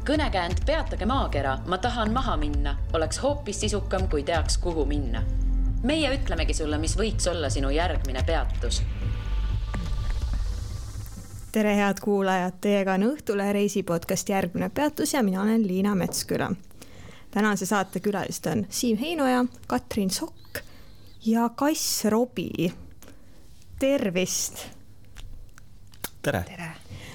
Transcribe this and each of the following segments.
Kõnekäänd peatage maakera, ma tahan maha minna, oleks hoopis sisukam, kui teaks, kuhu minna. Meie ütlemegi sulle, mis võiks olla sinu järgmine peatus. Tere head kuulajad, teiega on Õhtule reisipodcast Järgmine peatus ja mina olen Liina Metsküla. Tänase saate külalist on Siim Heinoja, Katrin Sokk ja Kass Robi. Tervist! Tere!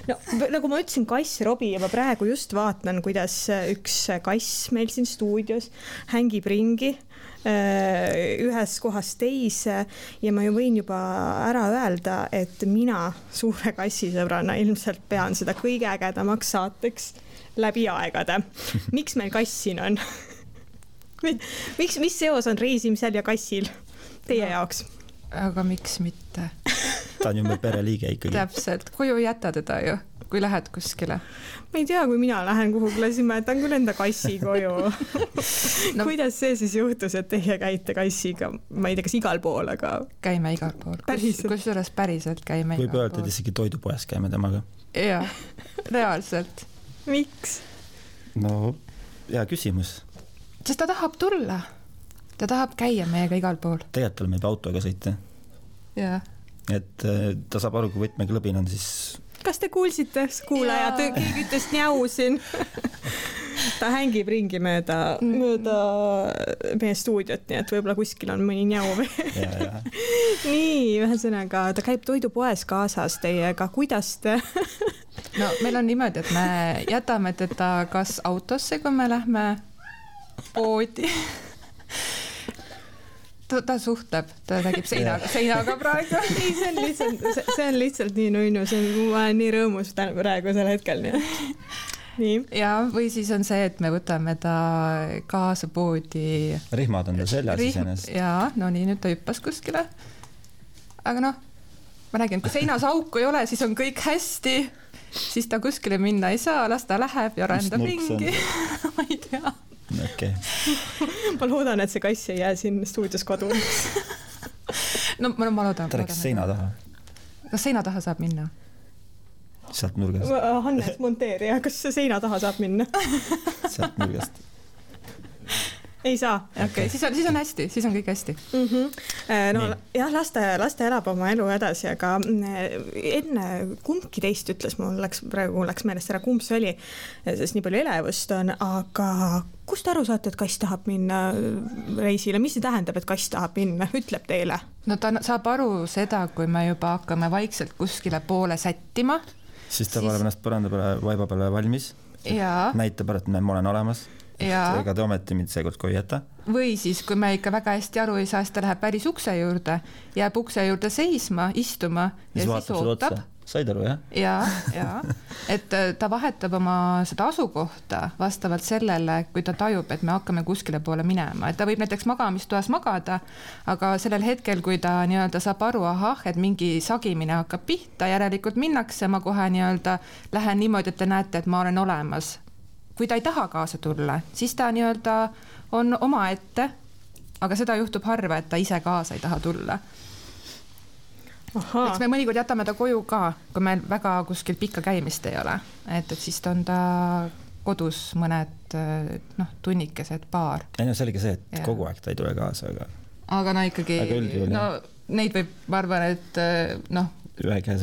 No, nagu ma ütlesin, Kass Robi ja ma praegu just vaatan, kuidas üks kass meil siin stuudios hängib ringi ühes kohas teise ja ma ju võin juba ära öelda, et mina suure kassisõbrana ilmselt pean seda kõige ägedamaks saateks läbi aegade. Miks meil kass siin on? Mis seos on reisimisel ja kassil teie jaoks? Aga miks mitte? Ta on ju meil pereliige ikkagi. Täpselt, koju jätta teda ju, kui lähed kuskile. Ma ei tea, kui mina lähen kuhugile, siis ma jätan küll enda kassi koju. No, kuidas see siis juhtus, et teie käite kassiga? Ma ei tea, kas igal pool, aga... Käime igal pool. Kusjuures päriselt käime igal pool. Võib öelda, et isegi toidupoes käime temaga. Jaa, reaalselt. Miks? No, hea küsimus. Sest ta tahab tulla. Ta tahab käia meiega igal pool. Tegelikult oleme juba autoga sõita. Jaa. Et ta saab aru, kui võtmeklõbin on, siis... Kas te kuulsite, kuulajad, keegi ütles njau siin? Ta hängib ringi mööda meie stuudiot, nii et võib-olla kuskil on mõni njau. Nii, ühesõnaga, ta käib toidupoes kaasas teiega. Kuidas te... No, meil on niimoodi, et me jätame teda kas autosse, kui me lähme poodi. Ta suhtleb, ta räägib seinaga praegu. Ei, see on lihtsalt nii nunnu, ma olen nii rõõmus praegu sel hetkel. Nii. Ja, või siis on see, et me võtame ta kaasa poodi. Rihmad on ta seljas iseenest. Jaa, no nii, nüüd ta hüppas kuskile. Aga noh, ma räägin, kui seinas auku ei ole, siis on kõik hästi. Siis ta kuskile minna ei saa, las ta läheb ja rändab ringi. Ma ei tea. Okay. Ma loodan, et see kass ei jää siin stuudios kodu. No ma loodan. Ta läks seina taha. Kas seina taha saab minna? Sealt nurgast. Hannes monteerija, kas seina taha saab minna? Sealt nurgast. Ei saa. Okay. Siis on hästi, siis on kõik hästi. No, jah, laste elab oma elu edasi, aga enne kumbki teist ütles, mul läks meelest ära, kumb see oli, sest nii palju elevust on, aga kust aru saate, et kass tahab minna reisile? Mis see tähendab, et kass tahab minna? Ütleb teile? No ta saab aru seda, kui me juba hakkame vaikselt kuskile poole sättima. Siis ta paneb ennast põranda peale, vaiba peale valmis. Näitab, et ma olen olemas. Ega te ometi mind seekord koju jäta. Või siis, kui me ikka väga hästi aru ei saa, siis ta läheb päris ukse juurde, jääb ukse juurde seisma, istuma ja siis ootab. Said aru, jah? Jaa. Et ta vahetab oma seda asukohta vastavalt sellele, kui ta tajub, et me hakkame kuskile poole minema. Et ta võib näiteks magamistoas magada, aga sellel hetkel, kui ta nii-öelda saab aru, et mingi sagimine hakkab pihta, järelikult minnakse, ma kohe nii-öelda lähen niimoodi, et te näete, et ma olen olemas. Kui ta ei taha kaasa tulla, siis ta nii-öelda on oma ette, aga seda juhtub harva, et ta ise kaasa ei taha tulla. Eks me mõnikord jätame ta koju ka, kui meil väga kuskil pikka käimist ei ole. Et siis on ta kodus mõned tunnikesed paar. Ei, no selge see, et kogu aeg ta ei tule kaasa. Aga no ikkagi, neid võib, ma arvan, et ühe käes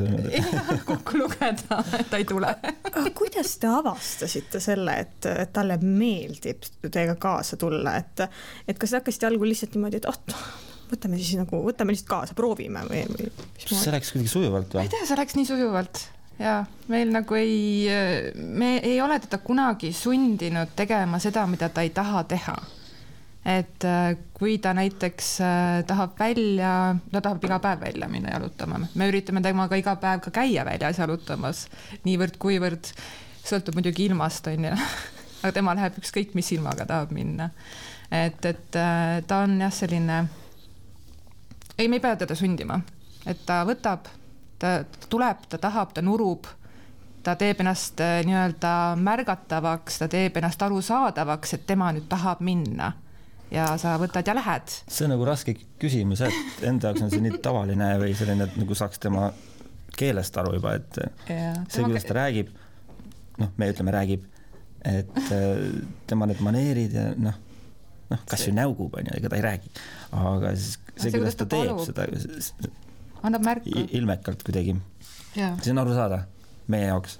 kokku lugeda, et ta ei tule. Kuidas te avastasite selle, et talle meeldib teiega kaasa tulla? Et kas hakkasite algul lihtsalt niimoodi, et võtame lihtsalt kaasa, proovime või see läks kuidagi sujuvalt või? Ei tea, see läks nii sujuvalt. Ja meil nagu me ei ole teda kunagi sundinud tegema seda, mida ta ei taha teha. Et kui ta näiteks tahab iga päev välja minna jalutama. Me üritame temaga iga päev ka käia väljas jalutamas. Niivõrd kuivõrd sõltub muidugi ilmast, on ju. Aga tema läheb ükskõik, mis ilmaga tahab minna. Et ta on jah selline... Ei, me ei pea teda sundima. Et ta võtab, ta tuleb, ta tahab, ta nurub, ta teeb ennast nii-öelda märgatavaks, ta teeb ennast arusaadavaks, et tema nüüd tahab minna. Ja sa võtad ja lähed. See on nagu raske küsimus, et enda jaoks on see nii tavaline või selline, et nagu saaks tema keelest aru juba, et see, kuidas ta räägib, me ütleme räägib, et tema need maneerid ja noh, kas ju näugub on ja ega ta ei räägi, aga siis see, kuidas ta teeb seda, annab märku ilmekalt kuidagi. See on aru saada meie jaoks.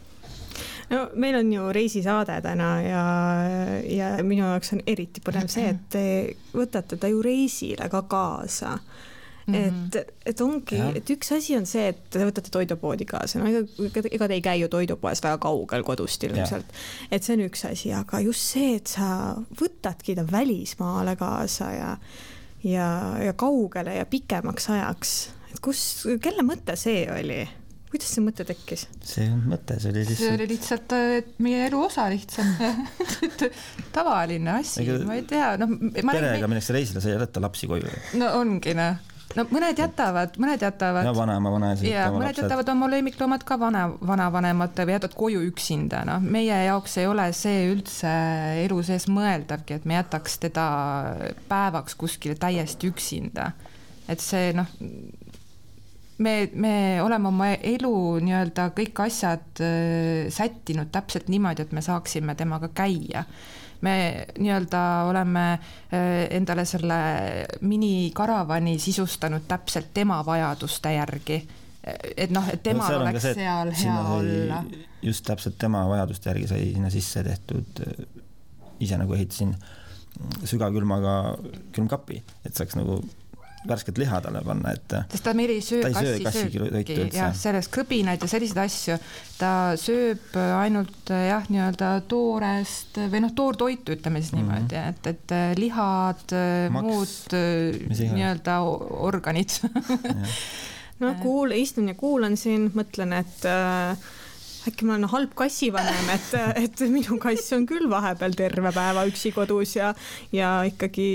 No meil on ju reisisaade täna ja minu jaoks on eriti põnev see, et te võtate ta ju reisile ka kaasa. Et ongi, et üks asi on see, et te võtate toidupoodi kaasa, no ega te ei käi ju toidupoes väga kaugel kodust ilmselt, et see on üks asi, aga just see, et sa võtadki ta välismaale kaasa ja kaugele ja pikemaks ajaks, et kelle mõte see oli? Kuidas see mõte tekkis? See mõte, see oli lihtsalt meie elu osa lihtsalt tavaline asi, ma ei tea. Perega minnakse reisile, sa ei jätta lapsi koju. No ongi, no mõned jätavad. Ja vanaisa. Ja mõned jätavad oma lemmikloomad ka vanavanemate või jätad koju üksinda. No, meie jaoks ei ole see üldse elu sees mõeldavgi, et me jätaks teda päevaks kuskile täiesti üksinda. Et see, me oleme oma elu nii-öelda kõik asjad sättinud täpselt niimoodi, et me saaksime temaga käia. Me nii-öelda oleme endale selle minikaravani sisustanud täpselt tema vajaduste järgi. Et et temal oleks seal hea olla. Just täpselt tema vajaduste järgi sai sinna sisse tehtud, ise nagu ehitasin sügavkülmaga külmkapi, et saaks nagu värsket liha talle panna, et sest ta meil ei söö kassisööki ja sellest kõbinaid ja selliseid asju, ta sööb ainult nii-öelda toorest või toortoitu, ütleme siis niimoodi, et lihad, muud nii-öelda organid. Istun ja kuulan siin, mõtlen, et äkki ma olen halb kassivanem, et minu kass on küll vahepeal terve päeva üksi kodus ja ikkagi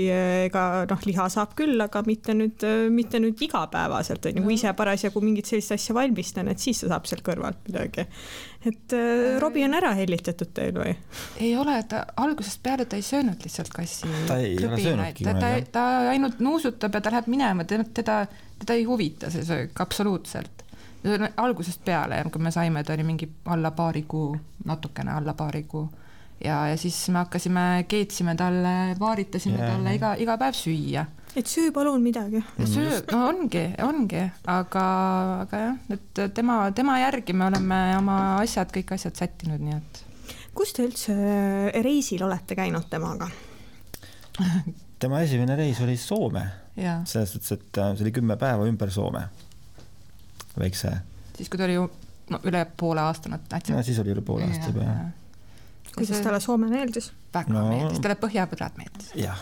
liha saab küll, aga mitte nüüd igapäevaselt, kui ise parasjagu mingit sellist asja valmistan, et siis ta saab seal kõrvalt midagi. Et Robi on ära hellitatud teil või? Ei ole, ta algusest peale ta ei söönud lihtsalt kassi. Ta ei ole söönudki. Ta ainult nuusutab ja ta läheb minema, teda ei huvita see söök absoluutselt. Algusest peale, kui me saime, ta oli mingi natukene alla paari kuu ja siis me hakkasime, keetsime talle, vaaritasime talle iga päev süüa. Et söö palun midagi. Ongi, aga jah, et tema järgi me oleme oma kõik asjad sättinud, nii et. Kus te üldse reisil olete käinud temaga? Tema esimene reis oli Soome. Selles suhtes, et see oli 10 päeva ümber Soome. Väikse. Siis kui ta oli ju üle poole aastana. Siis oli üle poole aasta juba. Kuidas talle Soome meeldis? Väga meeldis, talle Põhjapõdrad meeldis. Jah.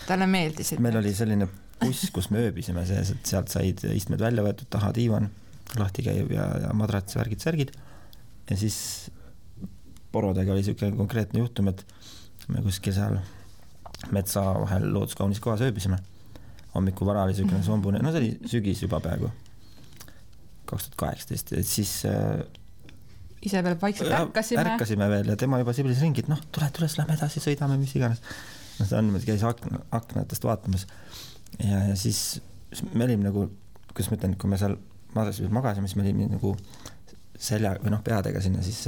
Talle meeldis. Meil oli selline buss, kus me ööbisime sees, et sealt said istmed välja võetud, taha diivan, lahti käib ja madrats, särgid. Ja siis porodega oli selline konkreetne juhtum, et me kuskil seal metsa vahel looduskaunis kohas ööbisime. Hommiku vara oli selline sombune, see oli sügis juba peaaegu. 2018, et siis ise veel vaikselt ärkasime veel ja tema juba siblis ringi, et tule, lähme edasi, sõidame, mis iganes. Ta käis aknatest vaatamas ja siis me olime nagu, kuidas ma ütlen, kui me seal magasime, siis me olime nagu selja või peadega sinna siis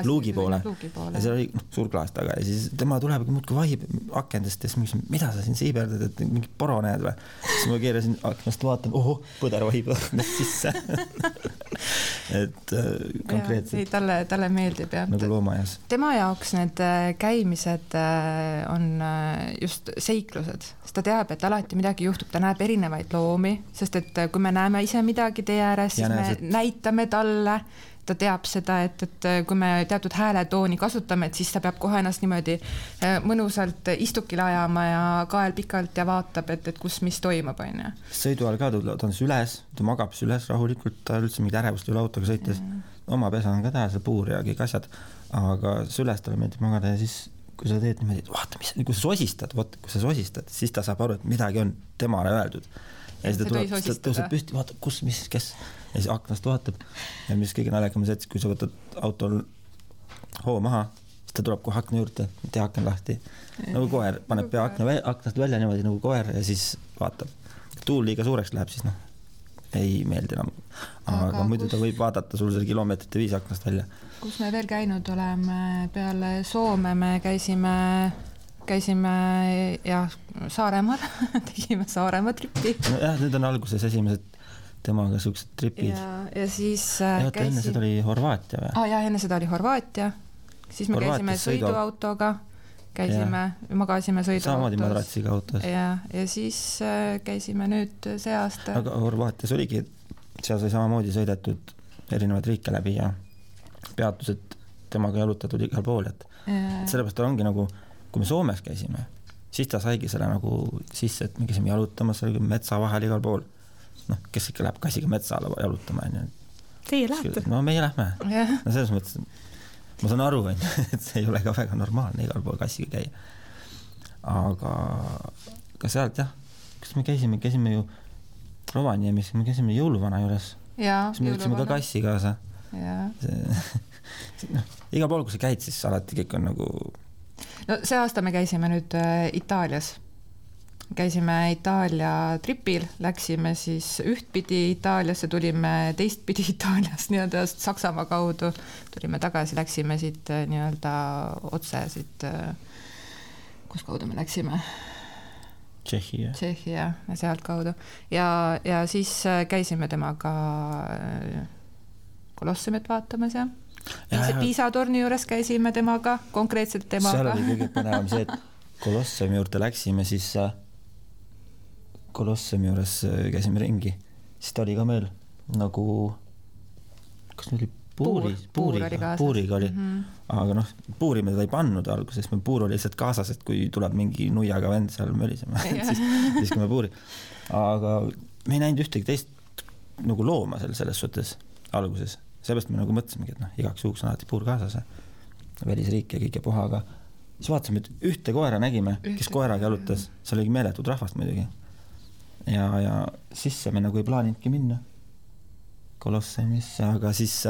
luugi poole. Ja seal oli suur klaas taga ja siis tema tuleb muudkui vahib akendest ja siis ma küsin, mida sa siin siiberdad, et mingi poro näed või? Siis ma keerasin aknast, vaatan, põder vahib aknast sisse. Et konkreetselt. Talle meeldib, jah. Nagu loomajas. Tema jaoks need käimised on just seiklused, sest ta teab, et alati midagi juhtub, ta näeb erinevaid loomi, sest et kui me näeme ise midagi tee ääres, siis me näitame talle, ta teab seda, et kui me teatud hääletooni kasutame, et siis ta peab kohe ennast niimoodi mõnusalt istukile ajama ja kael pikalt ja vaatab, et kus mis toimub. Sõidu all ka ta on üles, ta magab üles rahulikult, ta üldse mingid ärevust üle autoga sõites. Oma pesa on ka tähe, see puur ja kõik asjad, aga üles talle meeldib magada ja siis kui sa teed niimoodi, et vaata, kui sa sosistad, siis ta saab aru, et midagi on temale öeldud. Ja siis ta tõuseb püsti, vaata, kus, mis, kes. Ja siis aknast vaatab ja mis kõige naljakam see, et kui sa võtad autol hoo maha, siis ta tuleb kohe akna juurde, tee akna lahti. Nagu koer, paneb pea aknast välja niimoodi nagu koer ja siis vaatab. Tuul liiga suureks läheb, siis ei meeldi enam. Aga muidu ta võib vaadata sul selle kilomeetrite 5 aknast välja. Kus me veel käinud oleme? Peale Soome me käisime Saaremaal, tegime Saaremaa tripi. Jah, nüüd on alguses esimesed temaga suksed tripid. Ja siis enne seda oli Horvaatia või? Ja enne seda oli Horvaatia. Siis me käisime sõiduautoga, magasime sõiduautos. Samamoodi madratsiga autos. Ja siis käisime nüüd see aasta. Aga Horvaatias oligi, seal sai samamoodi sõidetud erinevaid riike läbi ja peatused temaga jalutatud igal pool. Sellepärast ongi nagu, kui me Soomes käisime, siis ta saigi selle nagu sisse, et me käisime jalutamas metsa vahel igal pool. Kes ikka läheb kassiga metsa alla jalutama. Teie lähete? No meie lähme. No selles mõttes, ma saan aru, et see ei ole ka väga normaalne igal pool kassiga käia. Aga sealt jah, kas me käisime ju Rovaniemis, me käisime jõuluvana juures. Siis me võtsime ka kassi kaasa. Igal pool, kui sa käid, siis alati kõik on nagu... No see aasta me käisime nüüd Itaalias. Käisime Itaalia tripil, läksime siis ühtpidi Itaaliasse, tulime teistpidi Itaaliast nii-öelda Saksamaa kaudu, tulime tagasi, läksime siit nii-öelda otse siit, kus kaudu me läksime? Tšehhi ja sealt kaudu. Ja siis käisime temaga Kolossumit vaatamas ja Piisa torni juures käisime temaga, konkreetselt temaga. Seal oli kõige põnevam see, et Kolossumi juurde läksime, siis Kolossumi juures käisime ringi, siis ta oli ka meil nagu, kas meil oli puuriga oli, aga puuri me teda ei pannud alguses, meil puur oli lihtsalt kaasas, et kui tuleb mingi nuiaga vend seal mölisema, siis kui me puuri. Aga me ei näinud ühtegi teist nagu looma selles suhtes alguses, seepärast me nagu mõtlesimegi, et igaks juhuks on alati puur kaasas, välisriik ja kõik ja puha, aga siis vaatasime, et ühte koera nägime, kes koeraga jalutas, seal oli meeletud rahvast muidugi. Ja sisse me nagu ei plaaninudki minna Kolossumisse, aga siis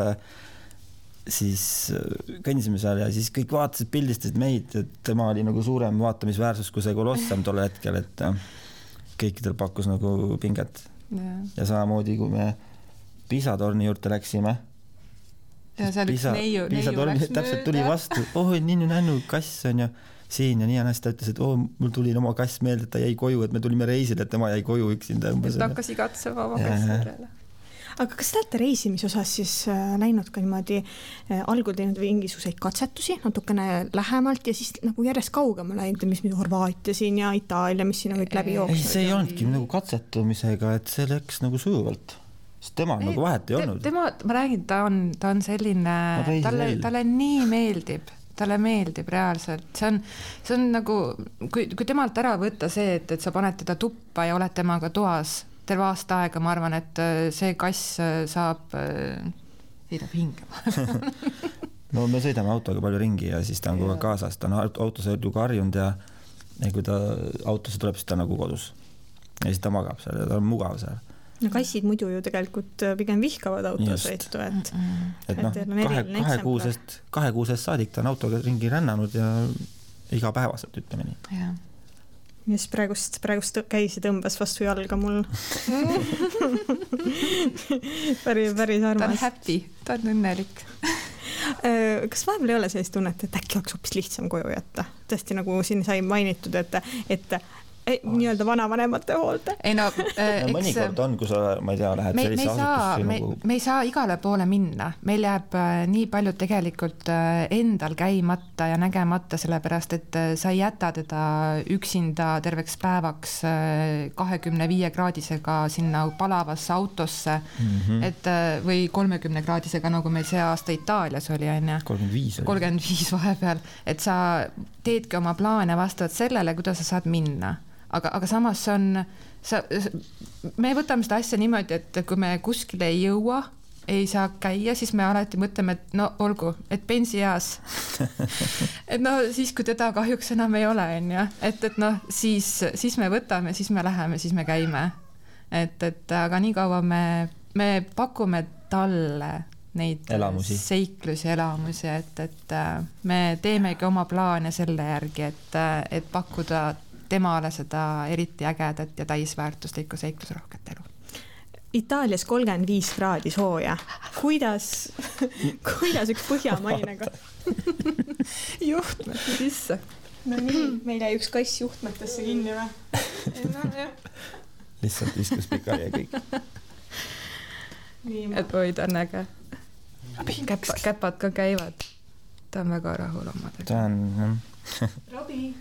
kõndisime seal ja siis kõik vaatasid, pildistasid meid, et tema oli nagu suurem vaatamisväärsus kui see Kolossum tol hetkel, et kõikidel pakkus nagu pinget. Ja samamoodi, kui me Piisa torni juurde läksime, ja seal üks neiu läks täpselt tuli vastu, nännu kass on ja siin ja nii ennast ta ütles, et mul tuli oma kass meelde, et ta jäi koju, et me tulime reisile, et tema jäi koju üksinda. Ta hakkas igatsema oma kassi järele. Aga kas te olete reisimise osas siis näinud ka niimoodi algul teinud mingisuguseid katsetusi natukene lähemalt ja siis nagu järjest kaugemale läinud, mis Horvaatia siin ja Itaalia, mis siin kõik läbi jooksnud? Ei, see ei olnudki nagu katsetumisega, et see läks nagu sujuvalt. Sest tema nagu vahet ei olnud. Ma räägin, ta on selline, talle nii meeldib. Talle meeldib reaalselt. See on nagu, kui temalt ära võtta see, et sa paned teda tuppa ja oled temaga toas terve aasta aega, ma arvan, et see kass saab hingema. No me sõidame autoga palju ringi ja siis ta on kogu kaasas. Ta on autosse ju karjunud ja kui ta autosse tuleb, siis ta nagu kodus. Ja siis ta magab seal ja ta on mugav seal. No kassid muidu ju tegelikult pigem vihkavad autosõitu, et kahe kuusest saadik ta on autoga ringi rännanud ja igapäevaselt ütleme nii. Ja siis praegust käisi tõmbas vastu jalga mul. päris armas. Ta on happy, ta on õnnelik. Kas vahepeal ei ole sellist tunnet, et äkki oleks hoopis lihtsam koju jätta? Tõesti nagu siin sai mainitud, et nii-öelda vanavanemate hoolde. Ei no, mõnikord on, kui sa, ma ei tea, lähed sellise asutusse. Me ei saa igale poole minna. Meil jääb nii palju tegelikult endal käimata ja nägemata, sellepärast, et sa ei jäta teda üksinda terveks päevaks 25-kraadisega sinna palavasse autosse, või 30-kraadisega, nagu meil see aasta Itaalias oli, 35 vahepeal, et sa teedki oma plaane vastavalt sellele, kuidas sa saad minna. Aga samas me võtame seda asja niimoodi, et kui me kuskile ei jõua, ei saa käia, siis me alati mõtleme, et no olgu, et pensioeas. Et no siis, kui teda kahjuks enam ei ole, et no siis me võtame, siis me läheme, siis me käime. Aga nii kaua me pakume talle neid seiklusi, elamusi, et me teemegi oma plaane selle järgi, et pakkuda temale seda eriti ägedat ja täisväärtuslikku seiklusrohket elu. Itaalias 35 kraadi sooja. Kuidas üks põhjamaine juhtmete sisse. No nii, meil jäi üks kass juhtmetesse kinni või? No, lihtsalt viskus pikali ja kõik. Et oi, ta on äge. Käpad ka käivad. Ta on väga rahul omadega. Ta on... Robi.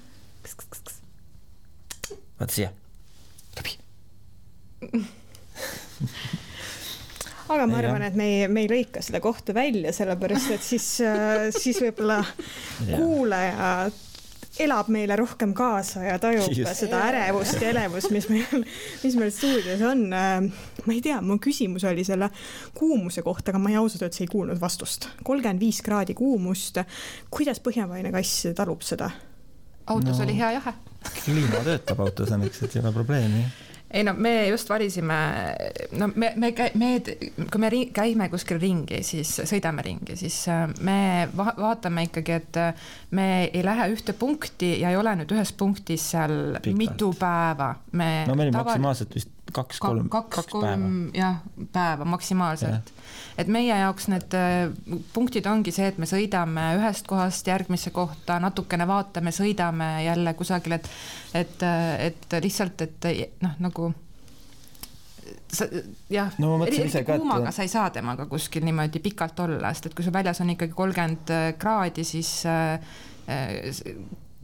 Vaata siia. Robi. Aga ma arvan, et me ei lõika seda kohta välja, sellepärast, et siis võib-olla kuulaja elab meile rohkem kaasa ja tajub seda ärevust ja elevust, mis meil stuudios on. Ma ei tea, mu küsimus oli selle kuumuse kohta, aga ma ausalt öeldes ei kuulnud vastust. 35 kraadi kuumust. Kuidas põhjamaine kass talub seda? Autos oli hea jahe. Kliima töötab autos, õnneks, et ei ole probleemi. Ei no, me just valisime, no kui me käime kuskil ringi, siis sõidame ringi, siis me vaatame ikkagi, et me ei lähe ühte punkti ja ei ole nüüd ühes punktis seal pikalt. Mitu päeva. No meil maksimaalselt vist 2-3 päeva. Jah, päeva maksimaalselt. Et meie jaoks need punktid ongi see, et me sõidame ühest kohast järgmisse kohta, natukene vaatame, sõidame jälle kusagil, et lihtsalt, et noh, nagu jah, eriti kuumaga sa ei saa temaga kuskil niimoodi pikalt olla, sest et kui su väljas on ikkagi 30 kraadi, siis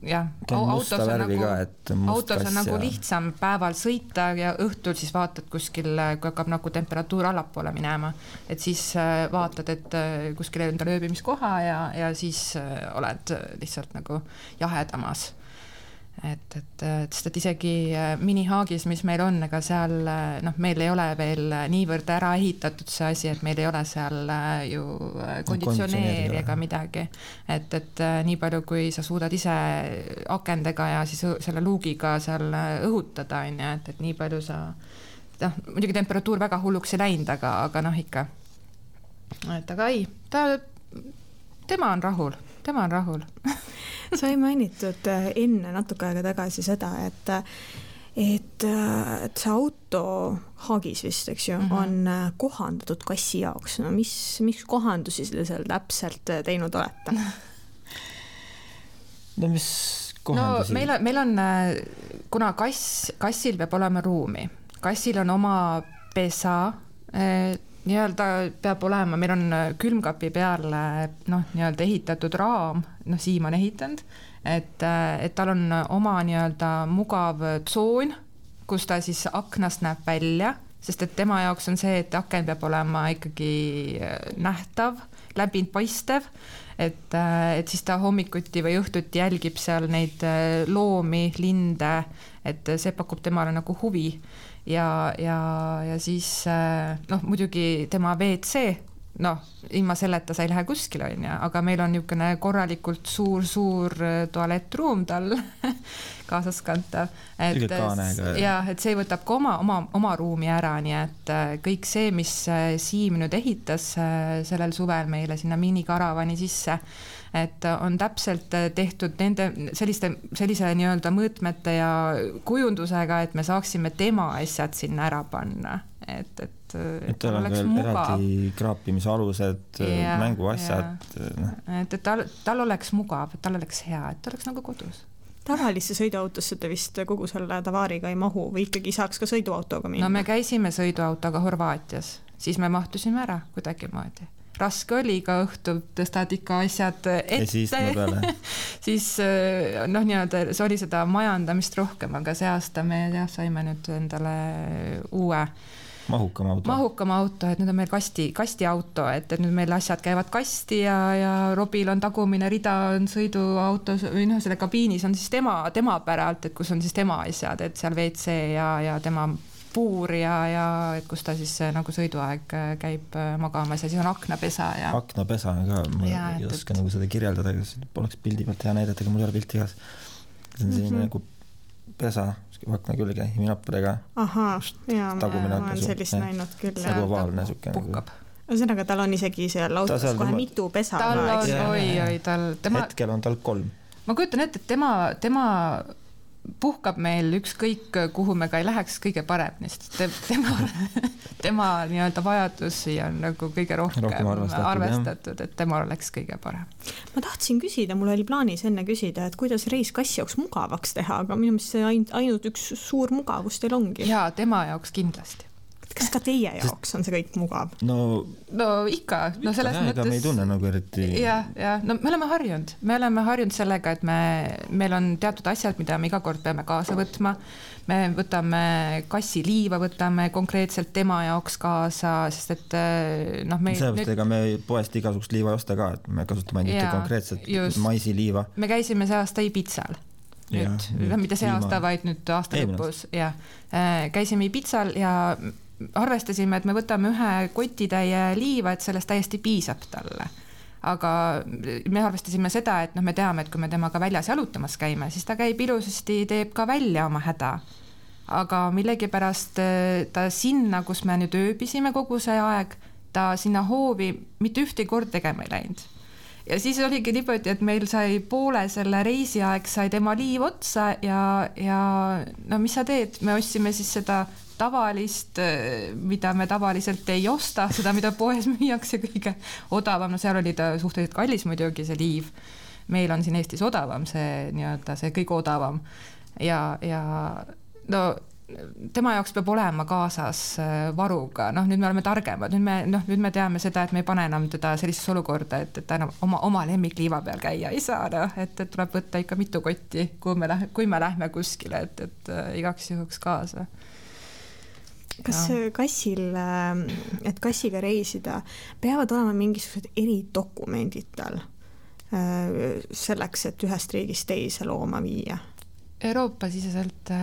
jah, autos on nagu lihtsam päeval sõita ja õhtul siis vaatad kuskil, kui hakkab nagu temperatuur allapoole minema, et siis vaatad, et kuskil enda lööbimiskoha ja siis oled lihtsalt nagu jahedamas. Et isegi minihaagis, mis meil on, ega seal meil ei ole veel niivõrd ära ehitatud see asi, et meil ei ole seal ju konditsioneeri ega midagi. Et nii palju, kui sa suudad ise akendega ja siis selle luugiga seal õhutada, et nii palju sa, muidugi temperatuur väga hulluks ei läinud, aga ikka. Et aga ei, tema on rahul. Sa ei mainitud enne natuke aega tagasi seda, et see auto haagis vist, eks ju, on kohandatud kassi jaoks. No mis kohandusi seal täpselt teinud olete? No mis kohandusi? No meil on, kuna kassil peab olema ruumi. Kassil on oma pesa, nii-öelda peab olema, meil on külmkapi peale nii-öelda ehitatud raam, Siim on ehitanud, et tal on oma nii-öelda mugav tsoon, kus ta siis aknast näeb välja, sest et tema jaoks on see, et aken peab olema ikkagi nähtav, läbind paistev, et siis ta hommikuti või õhtuti jälgib seal neid loomi, linde, et see pakub temale nagu huvi. Ja siis muidugi tema WC, ilma selleta sa ei lähe kuskil, aga meil on niisugune korralikult suur tualettruum tal kaasas kantav. Et see võtab ka oma ruumi ära, nii et kõik see, mis Siim nüüd ehitas sellel suvel meile sinna minikaravani sisse, et on täpselt tehtud sellise nii-öelda mõõtmete ja kujundusega, et me saaksime tema asjad sinna ära panna. Et tal oleks mugav. Eraldi kraapimise alused, mänguasjad. Et tal oleks mugav, et tal oleks hea, et ta oleks nagu kodus. Tavalisse sõiduautosse te vist kogu selle tavaariga ei mahu või ikkagi saaks ka sõiduautoga minna? No me käisime sõiduautoga Horvaatias, siis me mahtusime ära kuidagi moodi. Raske oli ka õhtul, tõstad ikka asjad ette. Ja siis nii-öelda see oli seda majandamist rohkem, aga see aasta me saime nüüd endale uue mahukam auto, et nüüd on meil kasti auto, et nüüd meil asjad käivad kasti ja Robil on tagumine rida on sõiduautos või selle kabiinis on siis tema päralt, et kus on siis tema asjad, et seal WC ja tema puur ja et kus ta siis nagu sõiduaeg käib magamas ja siis on aknapesa. Aknapesa on ka, ma ei oska nagu seda kirjeldada, poleks pildi pealt hea näidata, aga mul ei ole pilti igas. See on selline nagu pesa, akna külge, iminappadega. Ahaa, ma olen sellist näinud küll. Nagu ovaalne suke. Ühesõnaga, tal on isegi seal autos kohe mitu pesa. Tal on, oi, hetkel on tal 3. Ma kujutan ette, et tema puhkab meil ükskõik, kuhu me ka ei läheks kõige paremini, sest tema nii-öelda vajadusi on nagu kõige rohkem arvestatud, et tema oleks kõige parem. Ma tahtsin küsida, mul oli plaanis enne küsida, et kuidas reis kassi jaoks mugavaks teha, aga minu meelest see ainult üks suur mugavus teil ongi. Jaa, tema jaoks kindlasti. Kas ka teie jaoks on see kõik mugav? No ikka. No selles mõttes... Ega me ei tunne nagu eriti... Ja. No me oleme harjunud sellega, et meil on teatud asjad, mida me iga kord peame kaasa võtma. Me võtame kassiliiva, võtame konkreetselt tema jaoks kaasa, sest et Sellepärast ega me poest igasugust liiva ei osta ka, et me kasutame ainult konkreetselt maisiliiva. Me käisime see aasta Ibitsal. Mida see aasta, vaid nüüd aasta lõpus. Käisime Ibitsal ja arvestasime, et me võtame ühe kotitäie liiva, et sellest täiesti piisab talle. Aga me arvestasime seda, et me teame, et kui me temaga väljas jalutamas käime, siis ta käib ilusasti, teeb ka välja oma häda. Aga millegipärast ta sinna, kus me nüüd ööbisime kogu see aeg, ta sinna hoovi mitte ühte kord tegema ei läinud. Ja siis oligi niimoodi, et meil sai poole selle reisiaeg, sai tema liiv otsa ja no mis sa teed? Me ostsime siis seda tavalist, mida me tavaliselt ei osta, seda, mida poes müüakse kõige odavam. No seal oli ta suhteliselt kallis muidugi see liiv. Meil on siin Eestis odavam, see nii-öelda see kõige odavam. Ja no tema jaoks peab olema kaasas varuga. Nüüd me oleme targemad. Nüüd me teame seda, et me ei pane enam teda sellises olukorda, et ta enam oma lemmikliiva peal käia ei saa. Et tuleb võtta ikka mitu kotti, kui me lähme kuskile, et igaks juhuks kaasa. Kas kassil, et kassiga reisida, peavad olema mingisugused eridokumendid tal selleks, et ühest riigist teise looma viia? Euroopa siseselt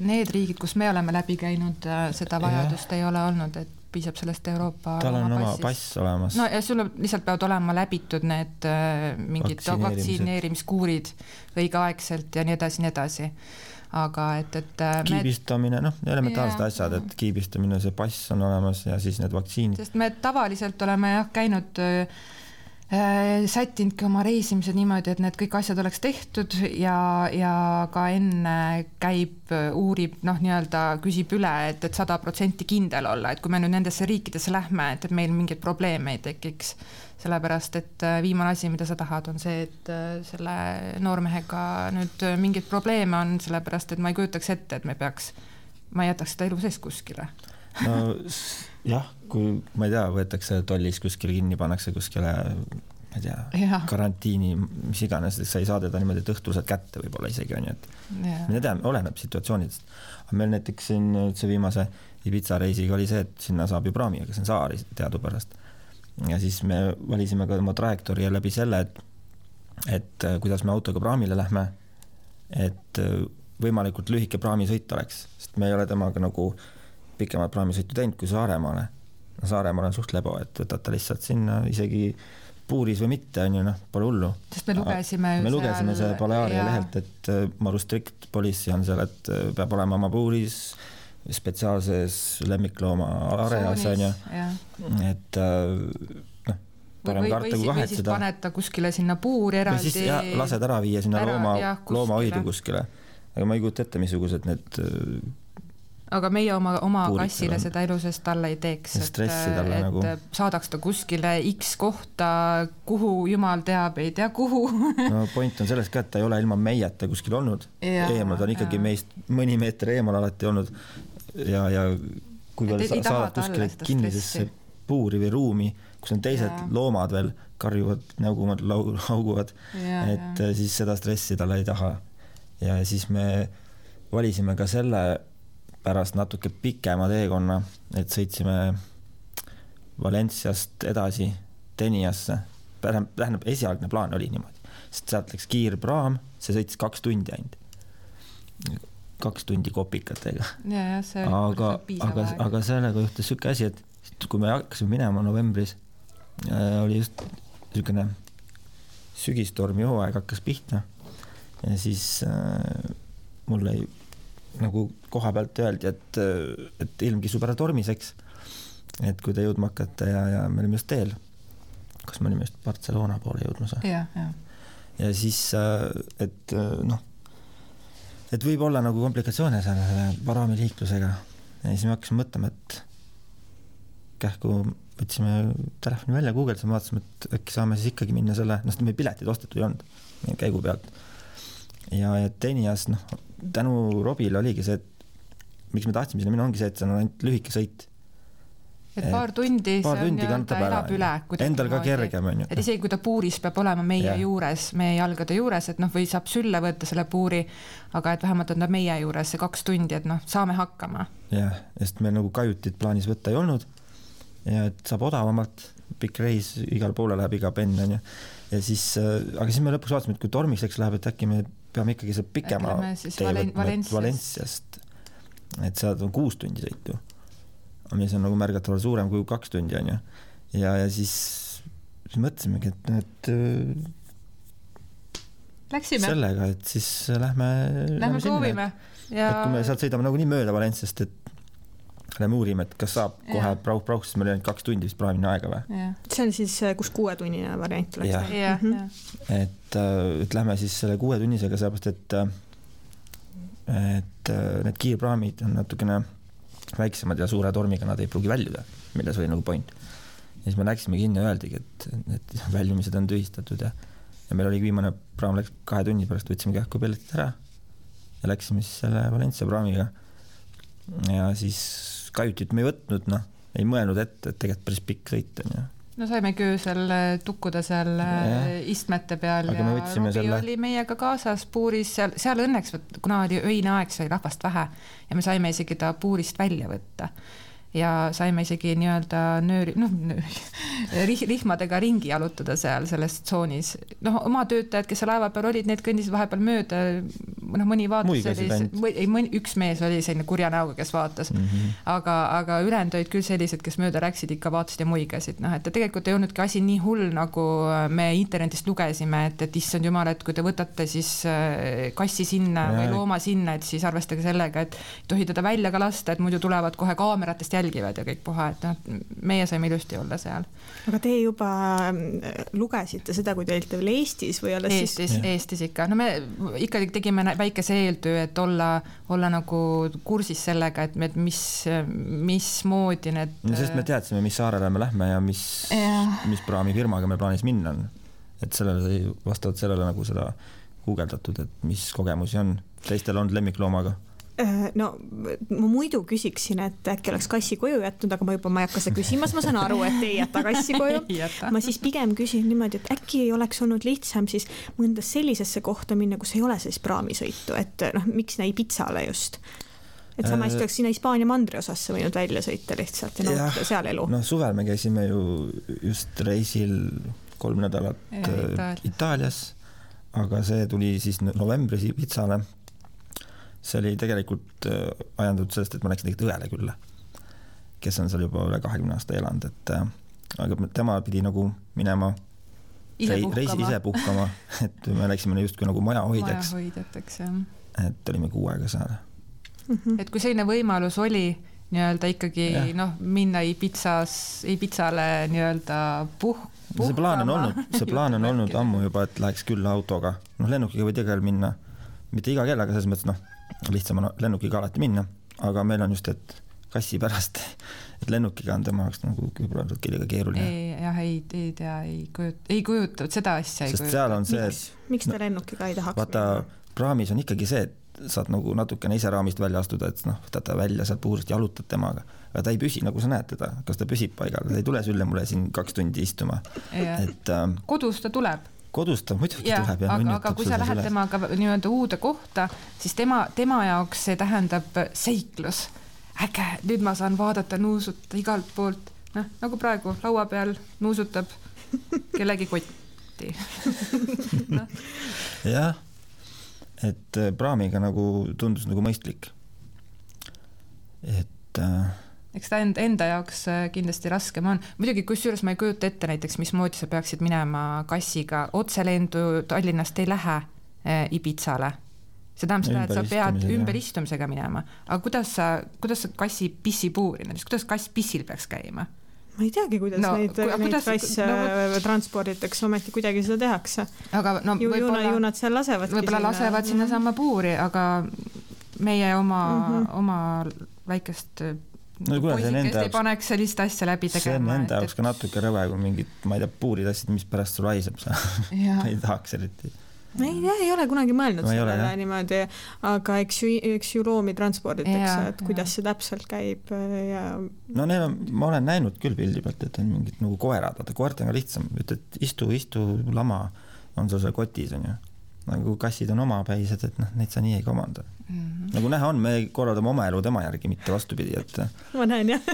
need riigid, kus me oleme läbi käinud, seda vajadust ei ole olnud, et piisab sellest Euroopa tal on oma pass olemas. No ja sul lihtsalt peavad olema läbitud need mingid vaktsineerimiskuurid õigeaegselt ja nii edasi. Aga et kiibistamine, elementaarsed asjad, et kiibistamine, see pass on olemas ja siis need vaktsiinid. Sest me tavaliselt oleme käinud sättinudki oma reisimised niimoodi, et need kõik asjad oleks tehtud ja ka enne käib, uurib, nii-öelda küsib üle, et 100% kindel olla, et kui me nüüd nendesse riikidesse lähme, et meil mingeid probleeme ei tekiks. Sellepärast, et viimane asi, mida sa tahad, on see, et selle noormehega nüüd mingid probleeme on, sellepärast, et ma ei kujutaks ette, et ma ei jätaks seda elu sees kuskile. No jah, kui ma ei tea, võetakse tollis kuskile kinni, pannakse kuskile, ma ei tea, karantiini, mis iganes, sa ei saa teda niimoodi, et õhtul saad kätte võib-olla isegi on, et me teame, oleneb situatsioonidest. Aga meil näiteks siin see viimase Ibiza reisiga oli see, et sinna saab ju praami, aga see on saari teadupärast. Ja siis me valisime ka oma trajektoori läbi selle, et kuidas me autoga praamile lähme, et võimalikult lühike praamisõit oleks, sest me ei ole temaga nagu pikemalt praamisõitu teinud kui Saaremaale. Saaremaal on suht lebo, et võtad ta lihtsalt sinna isegi puuris või mitte, on ju, pole hullu. Sest me lugesime see Balearia lehelt, et Maru Strict Policy on seal, et peab olema oma puuris spetsiaalses lemmiklooma areas, on ju. Et parem karta kui kahetseda. Või siis paneta kuskile sinna puuri eraldi. Või siis lased ära viia sinna loomahoidu kuskile. Aga ma ei kujuta ette, missugused need aga meie oma kassile seda elusest talle ei teeks, et saadaks ta kuskile X kohta, kuhu jumal teab, ei tea kuhu. No point on selles ka, et ta ei ole ilma meieta kuskil olnud. Eemal ta on ikkagi meist mõni meeter eemal alati olnud ja kui veel saadad kuskile kinnisesse puuri või ruumi, kus on teised loomad veel, karjuvad, näugumad, lauguvad, et siis seda stressi talle ei taha. Ja siis me valisime ka selle pärast natuke pikema teekonna, et sõitsime Valenciast edasi Teniasse. Tähendab, esialgne plaan oli niimoodi, sest sealt läks kiirpraam, see sõitis 2 tundi ainult. 2 tundi kopikatega. Aga sellega juhtus selline asi, et kui me hakkasime minema novembris, oli just selline sügistormi hooaeg hakkas pihta ja siis mul ei nagu koha pealt öeldi, et ilm kisub ära tormiseks, et kui te jõudma hakata ja me olime just teel, kas me olime just Barcelona poole jõudmas. Ja siis, et et võib olla nagu komplikatsioone selle paraamiliiklusega ja siis me hakkasime mõtlema, et kähku võtsime telefoni välja, guugeldasime, vaatasime, et äkki saame siis ikkagi minna selle, me piletid ostetud ei olnud käigu pealt. Ja Tenias, tänu Robile oligi see, et miks me tahtsime sinna minna, ongi see, et see on ainult lühike sõit. Et paar tundi see elab üle. Endal ka kergem on ju. Et isegi kui ta puuris peab olema meie juures, meie jalgade juures, et või saab sülle võtta selle puuri, aga et vähemalt on ta meie juures see 2 tundi, et saame hakkama. Jah, sest meil nagu kajutit plaanis võtta ei olnud ja et saab odavamalt, pikk reis, igal poole läheb iga penn on ju. Ja siis, aga siis me lõpuks vaatasime, et kui tormiseks läheb, et äkki me peame ikkagi see pikema Valensiast, et sealt on 6 tundi sõitu. Mis on nagu märgatavalt suurem kui 2 tundi on ju. Ja siis mõtlesimegi, et läksime sellega, et siis lähme proovime. Ja... Et kui me sealt sõidame nagu nii mööda Valensiast, et lähme uurime, et kas saab kohe prauh, sest meil oli 2 tundi vist praamine aega või? See on siis, kus 6-tunnine variant oleks. Et lähme siis selle 6 tunnisega sellepärast, et need kiirpraamid on natukene väiksemad ja suure tormiga nad ei pruugi väljuda, milles oli nagu point. Ja siis me läksime kinni ja öeldigi, et väljumised on tühistatud ja meil oli viimane praam läks 2 tunni pärast, võtsime kähku pelletid ära ja läksime siis selle Valencia praamiga ja siis kajutit me ei võtnud, ei mõelnud ette, et tegelikult päris pikk sõit on ja saime köösel tukkuda seal istmete peal aga ja Robi oli meiega kaasas puuris seal õnneks, kuna oli öine aeg, sai rahvast vähe ja me saime isegi ta puurist välja võtta ja saime isegi nii-öelda rihmadega ringi jalutada seal selles tsoonis. Oma töötajad, kes laeva peal olid, need kõndisid vahepeal mööda, mõni vaatas, üks mees oli selline kurja näoga, kes vaatas, aga ülejäänud olid küll sellised, kes mööda rääksid, ikka vaatasid ja muigasid. Et tegelikult ei olnudki asi nii hull, nagu me internetist lugesime, et issand jumal, et kui te võtate siis kassi sinna või looma sinna, et siis arvestage sellega, et tohi teda välja ka lasta, et muidu tulevad kohe kaameratest jälgivad ja kõik puha, et meie saime ilusti olla seal. Aga te juba lugesite seda, kui te olite veel Eestis või alles Eestis ikka. Me ikkagi tegime väikese eeltöö, et olla nagu kursis sellega, et mis moodi need... Sest me teadsime, mis saarele me lähme ja mis praamifirmaga me plaanis minna on. Et vastavalt sellele nagu seda guugeldatud, et mis kogemusi on. Teistel on lemmikloomaga. Ma muidu küsiksin, et äkki oleks kassi koju jätnud, aga ma ei hakka seda küsimas, ma saan aru, et ei jäta kassi koju. Ma siis pigem küsin niimoodi, et äkki ei oleks olnud lihtsam siis mõnda sellisesse kohta minna, kus ei ole siis praamisõitu, et miks näi Pitsale just. Et sama hästi oleks sinna Hispaania mandri osasse võinud välja sõita lihtsalt ja nautada seal elu. Suvel me käisime ju just reisil 3 nädalat Itaalias, aga see tuli siis novembris Pitsale. See oli tegelikult ajandatud sellest, et ma läksin tegelikult õele külla, kes on seal juba üle 20 aasta elanud, aga tema pidi nagu minema reisi ise puhkama, et me läksime just kui nagu majahoidjaks, et olime 6 aega seal. Et kui selline võimalus oli nii-öelda ikkagi minna Ibitsale nii-öelda puhkama. See plaan on olnud ammu juba, et läheks küll autoga. Lennukiga võid igal minna, mitte iga kell, aga selles mõttes lihtsam on lennukiga alati minna, aga meil on just, et kassi pärast, et lennukiga on tema jaoks nagu küllga keeruline. Ei kujuta, seda asja ei kujuta. Sest seal on see, miks ta lennukiga ei tahaks vaata, praamis on ikkagi see, et saad nagu natukene ise raamist välja astuda, et võtad ta välja sealt puurist, jalutad temaga, aga ta ei püsi, nagu sa näed teda, kas ta püsib paigal, ta ei tule sülle mulle siin 2 tundi istuma. Kodus ta tuleb. Kodus ta muidugi tuleb. Aga kui sa lähed temaga nii-öelda uude kohta, siis tema jaoks see tähendab seiklus. Äge, nüüd ma saan vaadata, nuusuta igalt poolt. Nagu praegu laua peal nuusutab kellegi kotti. Jah, et praamiga nagu tundus nagu mõistlik. Eks ta enda jaoks kindlasti raskem on. Muidugi, kusjuures ma ei kujuta ette näiteks, mismoodi sa peaksid minema kassiga. Otselendu Tallinnast ei lähe Ibitsale. See tähendab seda, et sa pead ümberistumisega minema. Aga kuidas sa kassi pissi puuri, kuidas kass pissil peaks käima? ma ei teagi, kuidas neid kasse transporditakse, ometi kuidagi seda tehakse. Aga no ju nad seal lasevadki võib-olla lasevad sinna sama puuri, aga meie oma väikest poisikest ei paneks sellist asja läbi tegema. See on enda jaoks ka natuke rõve, kui mingid, ma ei tea, puurid asjad, mis pärast sul haiseb sa ei tahaks eriti. Ei ole kunagi mõelnud sellele niimoodi, aga eks ju loomi transporditakse, et kuidas see täpselt käib ja... No ma olen näinud küll pildi pealt, et on mingid nagu koerad, vaata koert on ka lihtsam, ütled istu lama on sul seal kotis on ju. Nagu kassid on omapäised, et neid sa nii ei komanda. Nagu näha on, me korraldame oma elu tema järgi, mitte vastupidi, et... Ma näen, jah.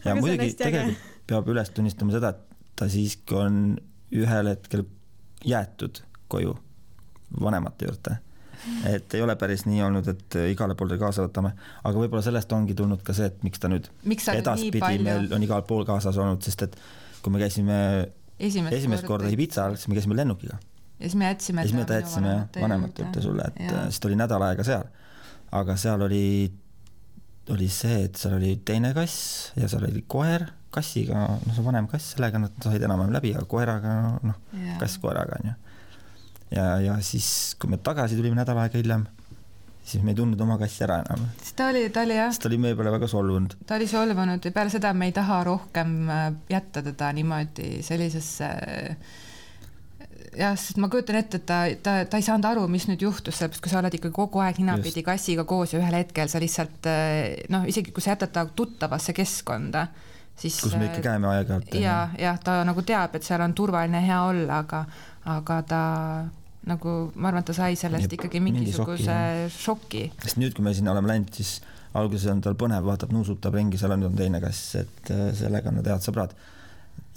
Ja muidugi tegelikult peab üles tunnistama seda, et ta siiski on ühel hetkel jäetud koju vanemate juurde. Et ei ole päris nii olnud, et igale poole kaasa võtame, aga võib-olla sellest ongi tulnud ka see, et miks ta nüüd edaspidi meil on igal pool kaasas olnud, sest et kui me käisime esimest korda Ibizal, siis me käisime lennukiga. Ja siis me jätsime vanemate juurde sulle, et siis ta oli nädal aega seal. Aga seal oli see, et seal oli teine kass ja seal oli koer kassiga, see vanem kass, sellega nad said enam läbi, aga koeraga, kass koeraga on ju. Ja siis, kui me tagasi tulime nädal aega hiljem, siis me ei tundnud oma kassi ära enam. Ta oli meie peale väga solvunud. Ta oli solvunud ja peale seda me ei taha rohkem jätta teda niimoodi sellisesse... sest ma kujutan ette, et ta ei saanud aru, mis nüüd juhtus, sellepärast kui sa oled ikka kogu aeg ninapidi kassiga koos ja ühel hetkel sa lihtsalt, isegi kui sa jätad ta tuttavasse keskkonda, siis... Kus me ikka käime aeg-ajalt. Ja ta nagu teab, et seal on turvaline hea olla, aga ta nagu, ma arvan, et ta sai sellest ikkagi mingisuguse šoki. Sest nüüd, kui me sinna oleme läinud, siis alguses on tal põnev, vaatab, nuusutab ringi, seal on teine kass, et sellega on head sõbrad.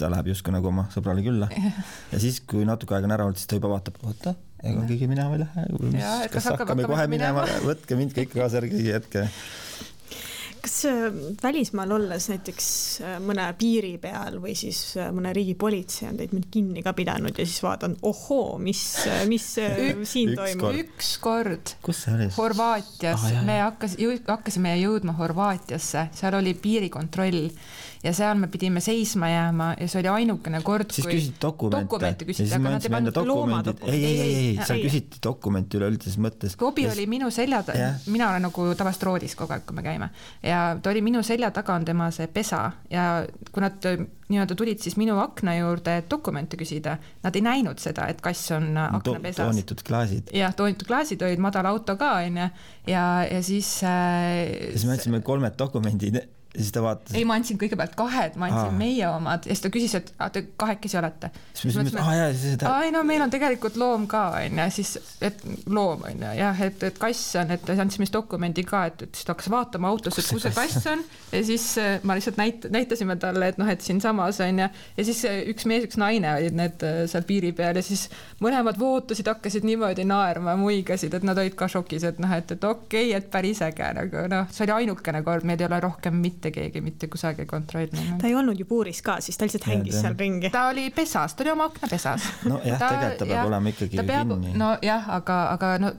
Ta läheb justkui nagu oma sõbrale külla. Ja siis, kui natuke aega on ära olnud, siis ta juba vaatab, oota, ega keegi minema ei lähe. Kas hakkame kohe minema, võtke mind kõik kaasa järgi hetke. Kas välismaal olles näiteks mõne piiri peal või siis mõne riigi politsei on teid mind kinni ka pidanud ja siis vaatan, ohoo, mis siin toimub? Üks kord. Kus see oli? Horvaatias. Me hakkasime jõudma Horvaatiasse, seal oli piirikontroll ja seal me pidime seisma jääma ja see oli ainukene kord, siis küsid dokumente küsiti, aga nad ei pannud loomadokumente. Ei, seal küsiti dokumenti üleüldises mõttes. Robi oli minu selja taga, mina olen nagu tavast roodis kogu aeg, kui me käime ja ta oli minu selja taga on tema see pesa ja kui nad nii-öelda tulid siis minu akna juurde dokumente küsida, nad ei näinud seda, et kass on aknapesas. Toonitud klaasid. Jah, toonitud klaasid olid madal auto ka ja siis me andsime 3 dokumendid siis ta vaatas. Ei, ma andsin kõigepealt 2, ma andsin meie omad ja siis ta küsis, et te 2 olete. Siis me meil on tegelikult loom ka, siis, et loom on jah, et kass on, et andsime dokumendi ka, et siis ta hakkas vaatama autos, et kus see kass on ja siis ma lihtsalt näitasime talle, et siin samas on ja siis üks mees, üks naine olid need seal piiri peal ja siis mõlemad vootasid, hakkasid niimoodi naerma, muigasid, et nad olid ka šokis, et okei, et päris äge, see oli ainukene kord, meil ei ole rohkem mitte keegi mitte kusagil kontrollinud. Ta ei olnud ju puuris ka, siis ta lihtsalt hängis seal ringi. Ta oli pesas, ta oli oma akna pesas. No jah, tegelikult ta peab olema ikkagi kinni. No jah, aga no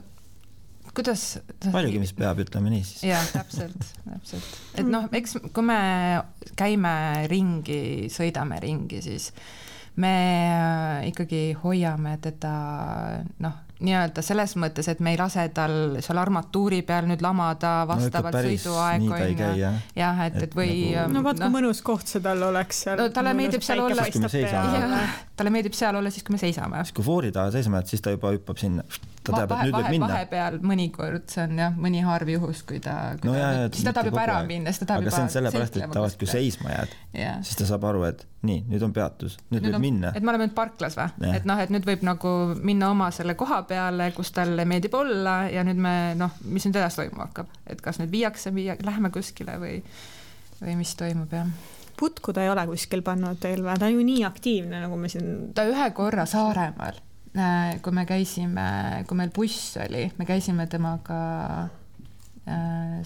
kuidas... Paljugi, mis peab, ütleme nii siis. Jah, täpselt. Et eks kui me käime ringi, sõidame ringi, siis me ikkagi hoiame teda nii-öelda selles mõttes, et me ei lase tal seal armatuuri peal nüüd lamada vastavalt sõiduaeg jah, et või vaat kui mõnus koht see tal oleks seal. No talle meeldib seal olla talle meeldib seal olla siis, kui me seisame. Siis kui foori taha seisame, et siis ta juba hüppab sinna. Ta teab, et nüüd võib minna. Vahepeal mõnikord, see on jah, mõni harv juhus, kui ta siis ta tahab juba ära minna, siis ta tahab juba... Aga see on sellepärast, et tavaliselt, kui seisma jääd, siis ta saab aru, et nii, nüüd on peatus, nüüd võib minna. Et me oleme nüüd parklas või? Et nüüd võib nagu minna oma selle koha peale, kus talle meeldib olla ja nüüd me, mis nüüd edasi toimuma hakkab? Et kas nüüd viiakse, läheme kuskile või mis toimub, jah? Putku ta ei ole kuskil pannud teil või? Ta on ju nii aktiivne, nagu me siin... Ta ühe korra Saaremaal, kui me käisime, kui meil buss oli, me käisime temaga,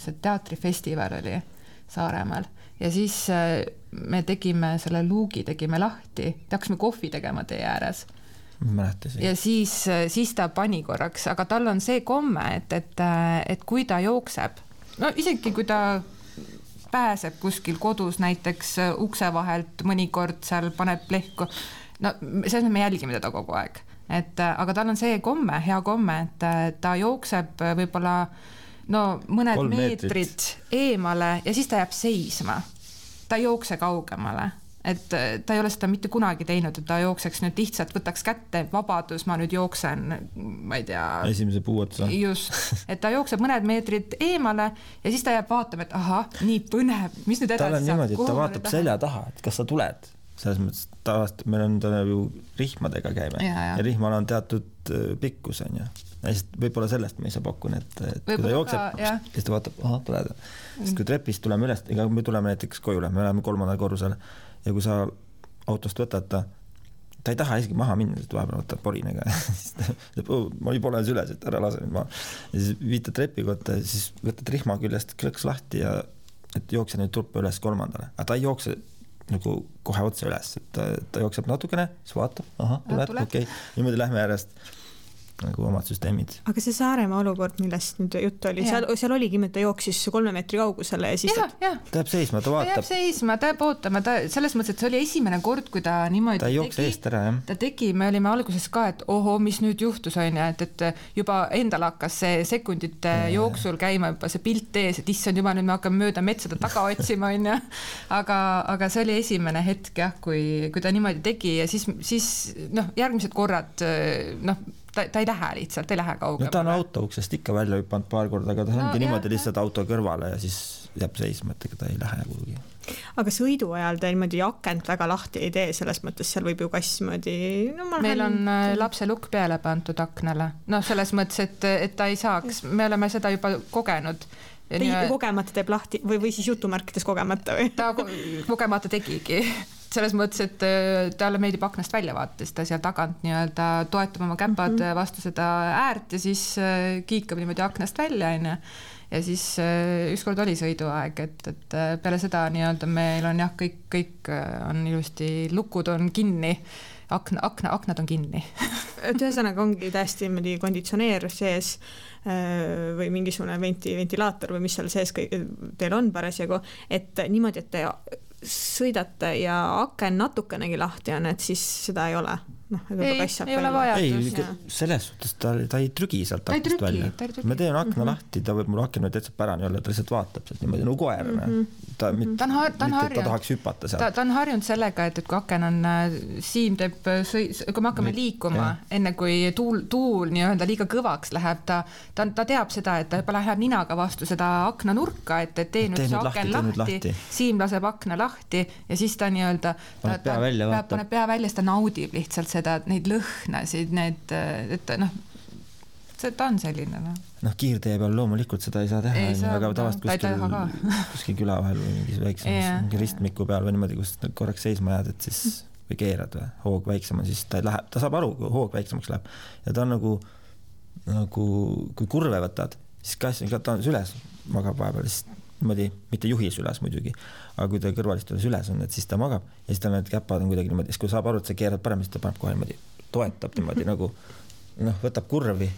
see teatrifestival oli Saaremaal ja siis me tegime selle luugi, tegime lahti, hakkasime kohvi tegema tee ääres. Ja siis ta pani korraks, aga tal on see komme, et kui ta jookseb, isegi kui ta pääseb kuskil kodus näiteks ukse vahelt, mõnikord seal paneb plehku. No selles me jälgime teda kogu aeg. Aga tal on see komme, hea komme, et ta jookseb võib-olla mõned meetrid eemale ja siis ta jääb seisma. Ta ei jookse kaugemale, et ta ei ole seda mitte kunagi teinud, et ta jookseks nüüd lihtsalt, võtaks kätte, vabadus, ma nüüd jooksen, ma ei tea. Esimese puu otsa. Just, et ta jookseb mõned meetrid eemale ja siis ta jääb vaatama, et aha, nii põnev, mis nüüd edasi saab. Tal on niimoodi, et ta vaatab selja taha, et kas sa tuled. Selles mõttes tavaliselt meil on ju rihmadega käime ja rihmal on teatud pikkus on ju. Võib-olla sellest me ei saa pakkun, et kui ta jookseb, siis ta vaatab, aha, tuled. Sest kui trepist tuleme üles, ega me tuleme näiteks kojule, me oleme 3. korrusel ja kui sa autost võtad ta ei taha isegi maha minna, sest vahepeal võtab porinega. Ma ei pole üles, et ära lase nüüd maha. Ja siis viitad trepi kohta, siis võtad rihma küljest klõks lahti ja et jookse nüüd turpa üles 3. Aga ta ei jookse nagu kohe otse üles, et ta jookseb natukene, siis vaatab, aha, tuled, okei. Niimoodi lähme järjest nagu omad süsteemid. Aga see Saaremaa olukord, millest nüüd jutt oli, seal oligi, et ta jooksis 3 meetri kaugusele ja siis ta jääb seisma, ta vaatab. Ta jääb seisma, ta jääb ootama, selles mõttes, et see oli esimene kord, kui ta niimoodi ta jookse eest ära, jah. Ta tegi, me olime alguses ka, et oho, mis nüüd juhtus on ja, et juba endal hakkas see sekundite jooksul käima juba see pilt ees, et issand juba nüüd me hakkame mööda metsada taga otsima on ja. Aga see oli esimene hetk jah, kui ta niimoodi tegi ja siis järgmised korrad ta ei lähe lihtsalt, ei lähe kaugele. Ta on auto uksest ikka välja hüpanud paar korda, aga ta ongi niimoodi lihtsalt auto kõrvale ja siis jääb seisma, et ta ei lähe kuhugi. Aga sõidu ajal ta niimoodi akent väga lahti ei tee, selles mõttes seal võib ju kass moodi... Meil on lapse lukk peale pandud aknale. Selles mõttes, et ta ei saaks, me oleme seda juba kogenud. Kogemata teeb lahti või siis jutumärkides kogemata või? Ta kogemata tegigi. Selles mõttes, et talle meeldib aknast välja vaates, ta seal tagant nii-öelda toetab oma käpad vastu seda äärt ja siis kiikab niimoodi aknast välja ja siis ükskord oli sõiduaeg, et peale seda nii-öelda meil on jah, kõik on ilusti, lukud on kinni, aknad on kinni. Ühesõnaga ongi täiesti konditsioneer sees või mingisugune ventilaator või mis seal sees teil on parasjagu, et niimoodi, et te sõidate ja aken natukenegi lahti on, et siis seda ei ole. Ei ole vajadus. Selles suhtes ta ei trügi sealt aknast välja. Me teen akna lahti, ta võib mul aken täitsa pärani olla, ta lihtsalt vaatab sealt niimoodi nagu koer. Ta tahaks hüpata sealt. Ta on harjunud sellega, et kui aken on, Siim teeb, kui me hakkame liikuma, enne kui tuul nii-öelda liiga kõvaks läheb, ta teab seda, et ta juba läheb ninaga vastu seda akna nurka, et tee nüüd see aken lahti, Siim laseb akna lahti ja siis ta nii-öelda paneb pea välja, siis ta naudib lihtsalt seda, neid lõhnasid, et ta on selline. Kiirtee peal loomulikult seda ei saa teha, aga tavast kuskil küla vahel või mingis väiksem ristmiku peal või niimoodi, kus korraks seisma jääd, et siis või keerad või hoog väiksem on, siis ta läheb, ta saab aru, kui hoog väiksemaks läheb ja ta on nagu kui kurve võtad, siis kass ta on süles magab vahepeal, siis niimoodi, mitte juhis üles muidugi, aga kui ta kõrvalistules üles on, et siis ta magab ja siis ta need käpad on kuidagi niimoodi, siis kui saab aru, et sa keerad parem, siis ta paneb kohe niimoodi, toetab niimoodi nagu võtab kurvi,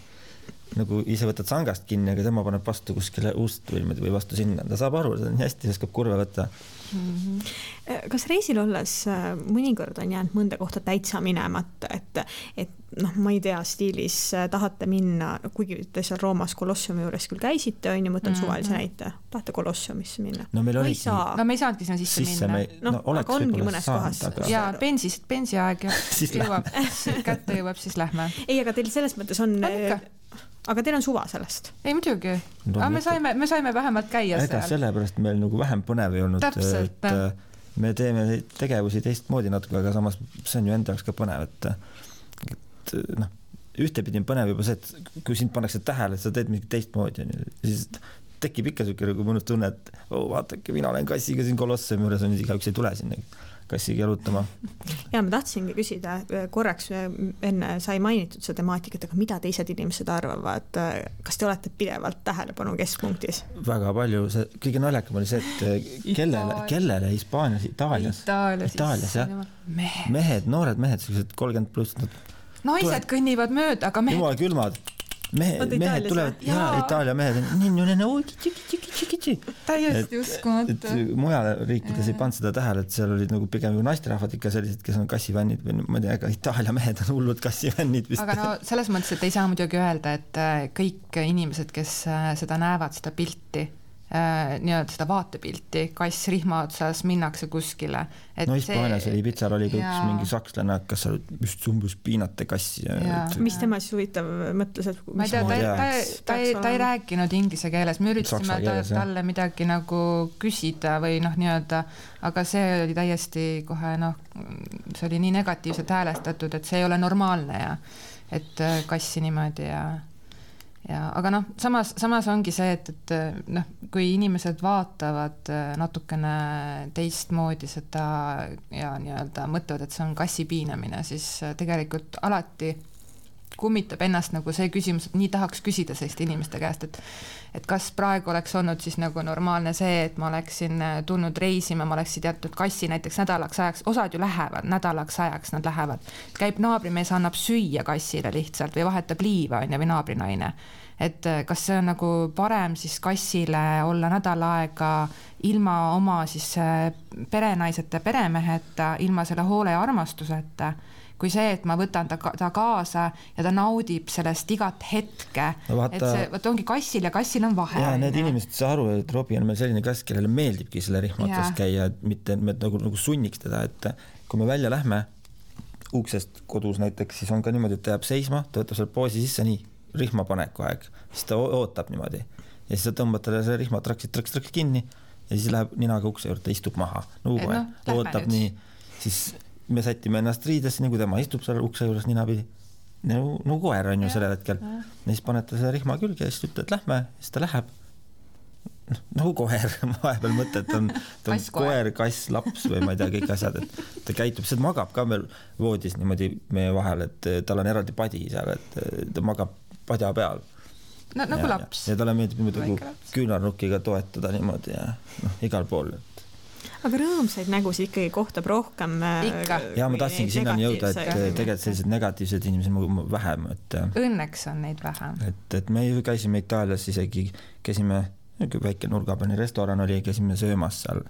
nagu ise võtad sangast kinni, aga tema paneb vastu kuskile ust või vastu sinna. Ta saab aru, ta on hästi, oskab kurve võtta. Kas reisil olles mõnikord on jäänud mõnda kohta täitsa minemata, et ma ei tea, stiilis tahate minna, kuigi te seal Roomas Kolossiumi juures küll käisite, on ju, mõtlen suvalise näite, tahate Kolossiumisse minna? No me ei saanudki sinna sisse minna. Aga ongi mõnes kohas. Ja bensiaeg kätte jõuab, siis lähme. Ei, aga teil selles mõttes on... Aga teil on suva sellest? Ei, muidugi. Aga me saime vähemalt käia seal. Sellepärast meil nagu vähem põnev ei olnud. Täpselt. Me teeme tegevusi teistmoodi natuke, aga samas see on ju enda jaoks ka põnev, et ühtepidi on põnev juba see, et kui sind pannakse tähele, et sa teed mingi teistmoodi, siis tekib ikka selline nagu mõnus tunne, et vaatake, mina olen kassiga siin Kolossiumi juures, on igaüks ei tule sinna kassiga jalutama. Ja ma tahtsingi küsida, korraks enne sai mainitud seda temaatikat, aga mida teised inimesed arvavad? Kas te olete pidevalt tähelepanu keskpunktis? Väga palju. Kõige naljakam oli see, et kellele Hispaanias, Itaalias, jah. Mehed, noored mehed, sellised 30+. Naised kõnnivad mööda, aga mehed... Jumal külmad. mehed tulevad, Itaalia mehed täiesti uskumatu. Mujal riikides ei pannud seda tähele, et seal olid nagu pigem naisterahvad ikka sellised, kes on kassivännid või ma ei tea, aga Itaalia mehed on hullud kassivännid vist. Aga no selles mõttes, et ei saa muidugi öelda, et kõik inimesed, kes seda näevad, seda pilti, nii-öelda seda vaatepilti, kass rihma otsas, minnakse kuskile. No Hispaanias oli Pitsar, oli ka üks mingi sakslane, kas sa just umbes piinate kassi. Mis tema siis huvitav mõtles, et ma ei tea, ta ei rääkinud inglise keeles, me üritasime talle midagi nagu küsida või nii-öelda, aga see oli täiesti kohe, see oli nii negatiivselt häälestatud, et see ei ole normaalne ja et kassi niimoodi aga samas ongi see, et kui inimesed vaatavad natukene teistmoodi seda ja nii-öelda mõtlevad, et see on kassi piinamine, siis tegelikult alati kummitab ennast nagu see küsimus, et nii tahaks küsida selliste inimeste käest, et kas praegu oleks olnud siis nagu normaalne see, et ma oleksin tulnud reisima, ma oleksin teatud kassi näiteks nädalaks ajaks, osad ju lähevad, nädalaks ajaks nad lähevad, käib naabrimees, annab süüa kassile lihtsalt või vahetab liiva või naabrinaine, et kas see on nagu parem siis kassile olla nädal aega ilma oma siis perenaiseta, peremeheta, ilma selle hoole ja armastuseta, kui see, et ma võtan ta kaasa ja ta naudib sellest igat hetke, et see ongi kassil ja kassil on vahe. Ja need inimesed saa aru, et Robi on meil selline kass, kellele meeldibki selle rihmatas käia, et mitte me nagu sunniks teda, et kui me välja lähme uksest kodus näiteks, siis on ka niimoodi, et ta jääb seisma, ta võtab selle poosi sisse nii, rihmapaneku aeg, siis ta ootab niimoodi ja siis ta tõmbab talle selle rihmatraksid kinni ja siis läheb ninaga ukse juurde, istub maha, ootab nii, siis me sätime ennast riidesse, nii kui tema istub seal ukse juures ninapidi. No koer on ju sellel hetkel. Ja siis panete selle rihma külge ja siis ütled, et lähme, siis ta läheb. Nagu koer, vahepeal mõte, et on koer, kass, laps või ma ei tea, kõik asjad, et ta käitub, see magab ka meil voodis niimoodi meie vahel, et tal on eraldi padi seal, et ta magab padja peal. Nagu laps. Ja talle meeldib niimoodi küünarnukiga toetada niimoodi ja igal pool. Aga rõõmsaid nägusid ikkagi kohtab rohkem. Ja ma tahtsingi sinnani jõuda, et tegelikult sellised negatiivsed inimesed vähem. Õnneks on neid vähem. Et me käisime Itaalias isegi, käisime väike nurgapäine restoran oli, käisime söömas seal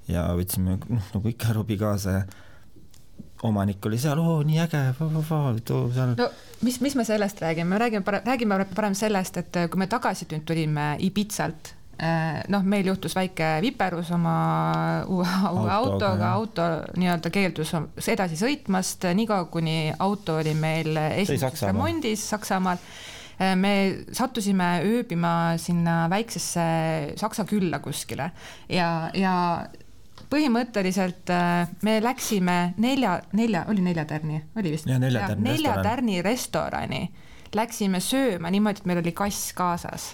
ja võtsime nagu ikka Robi kaasa ja omanik oli seal, nii äge, seal. No, mis me sellest räägime? Räägime parem sellest, et kui me tagasi tulime Ibizalt, meil juhtus väike viperus oma uue autoga, auto nii-öelda keeldus edasi sõitmast, niikaua kuni auto oli meil esimeses remondis Saksamaal. Me sattusime ööbima sinna väiksesse Saksa külla kuskile ja põhimõtteliselt me läksime nelja tärni restorani, läksime sööma niimoodi, et meil oli kass kaasas.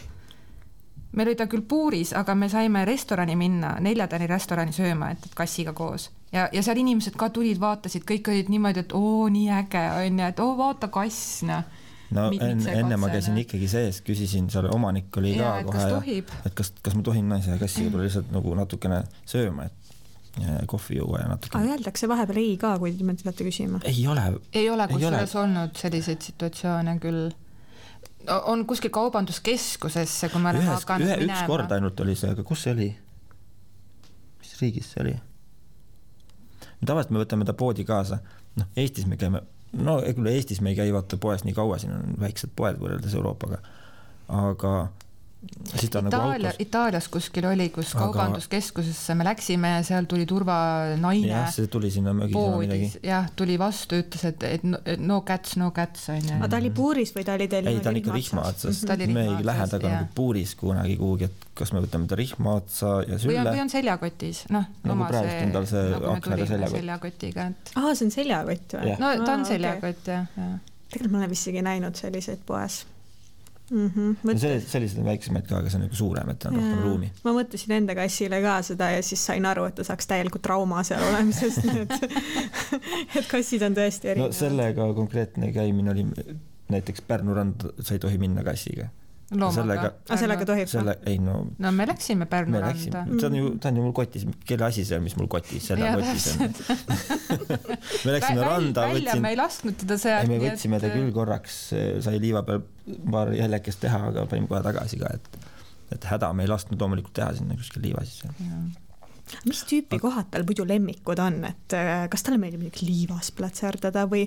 Meil oli ta küll puuris, aga me saime restorani minna, 4 tärni restorani sööma, et kassiga koos. Ja seal inimesed ka tulid, vaatasid, kõik olid niimoodi, et nii äge on ja et vaata kass, No enne ma käisin ikkagi sees, küsisin, seal omanik oli ka kohe, et kas ma tohin naise ja kassiga tuli lihtsalt nagu natukene sööma, et kohvi juua ja natukene. Aga öeldakse vahepeal ei ka, kui te tulete küsima? Ei ole kusjuures olnud selliseid situatsioone küll. On kuskil kaubanduskeskusesse, kui ma olen hakanud minema. Üks kord ainult oli see, aga kus see oli? Mis riigis see oli? Tavaliselt me võtame ta poodi kaasa. Eestis me käime, Eestis me ei käi vaata poes nii kaua, siin on väiksed poed võrreldes Euroopaga, aga siis ta nagu autos. Itaalias kuskil oli, kus kaubanduskeskusesse me läksime ja seal tuli turvanaine. Jah, see tuli sinna mögisema midagi. Jah, tuli vastu, ütles, et no cats. Aga ta oli puuris või ta oli teil? Ei, ta on ikka rihma otsas. Me ei lähe taga nagu puuris kunagi kuhugi, et kas me võtame ta rihma otsa ja sülle. Või on seljakotis. Nagu praegust on tal see aknaga seljakotiga. See on seljakott või? No ta on seljakott, jah. Tegelikult ma olen vist isegi näinud selliseid poes. Sellised on väiksemaid ka, aga see on nagu suurem, et on rohkem ruumi. Ma mõtlesin enda kassile ka seda ja siis sain aru, et ta saaks täielikult trauma seal olemisest, et kassid on tõesti erinevad. Sellega konkreetne käimine oli näiteks Pärnu rand, sa ei tohi minna kassiga. loomaga. Sellega tohib? Ei, no me läksime Pärnu randa. Ta on ju mul kotis, kelle asi see, mis mul kotis, selle kotis on. Me läksime randa. Me ei lasknud teda seal. Me võtsime ta küll korraks, sai liiva peal paar jäljekest teha, aga panime kohe tagasi ka, et häda me ei lasknud loomulikult teha sinna kuskil liiva sisse. Mis tüüpi kohad tal muidu lemmikud on, et kas talle meeldib liivas platserdada või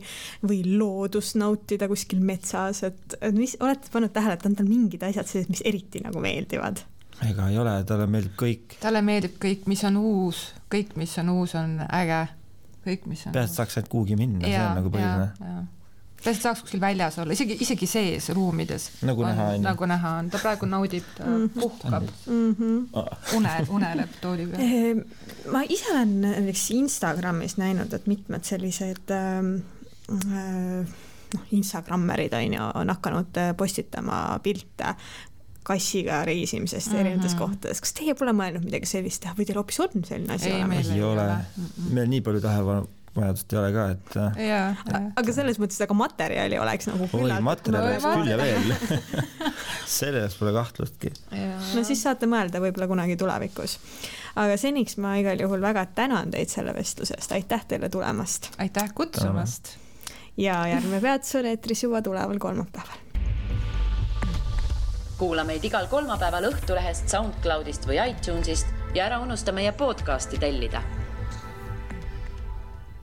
loodust nautida kuskil metsas, et mis olete pannud tähele, et on tal mingid asjad sellised, mis eriti nagu meeldivad? Ega ei ole, talle meeldib kõik. Talle meeldib kõik, mis on uus, kõik, mis on uus, on äge. Kõik, mis on peast saaks ainult kuhugi minna, see on nagu põhiline. Peast saaks kuskil väljas olla, isegi sees ruumides. Nagu näha on. Ta praegu naudib, ta puhkab. Uneleb tooli peal. Ma ise olen näiteks Instagramis näinud, et mitmed sellised Instagrammerid on hakanud postitama pilte kassiga reisimisest erinevates kohtades. Kas teie pole mõelnud midagi sellist teha või teil hoopis on selline asi olemas? Ei ole. Meil nii palju tähelepanu-vajadust ei ole ka, et... Aga selles mõttes, aga materjali oleks nagu küllalt... Materjali oleks küll ja veel. Selles pole kahtlustki. No siis saate mõelda võib-olla kunagi tulevikus. Aga seniks ma igal juhul väga tänan teid selle vestlusest. Aitäh teile tulemast. Aitäh kutsumast. Ja järgmine peatus on eetris juba tuleval kolmapäeval. Kuula meid igal kolmapäeval Õhtulehest, SoundCloudist või iTunesist ja ära unusta meie podcasti tellida.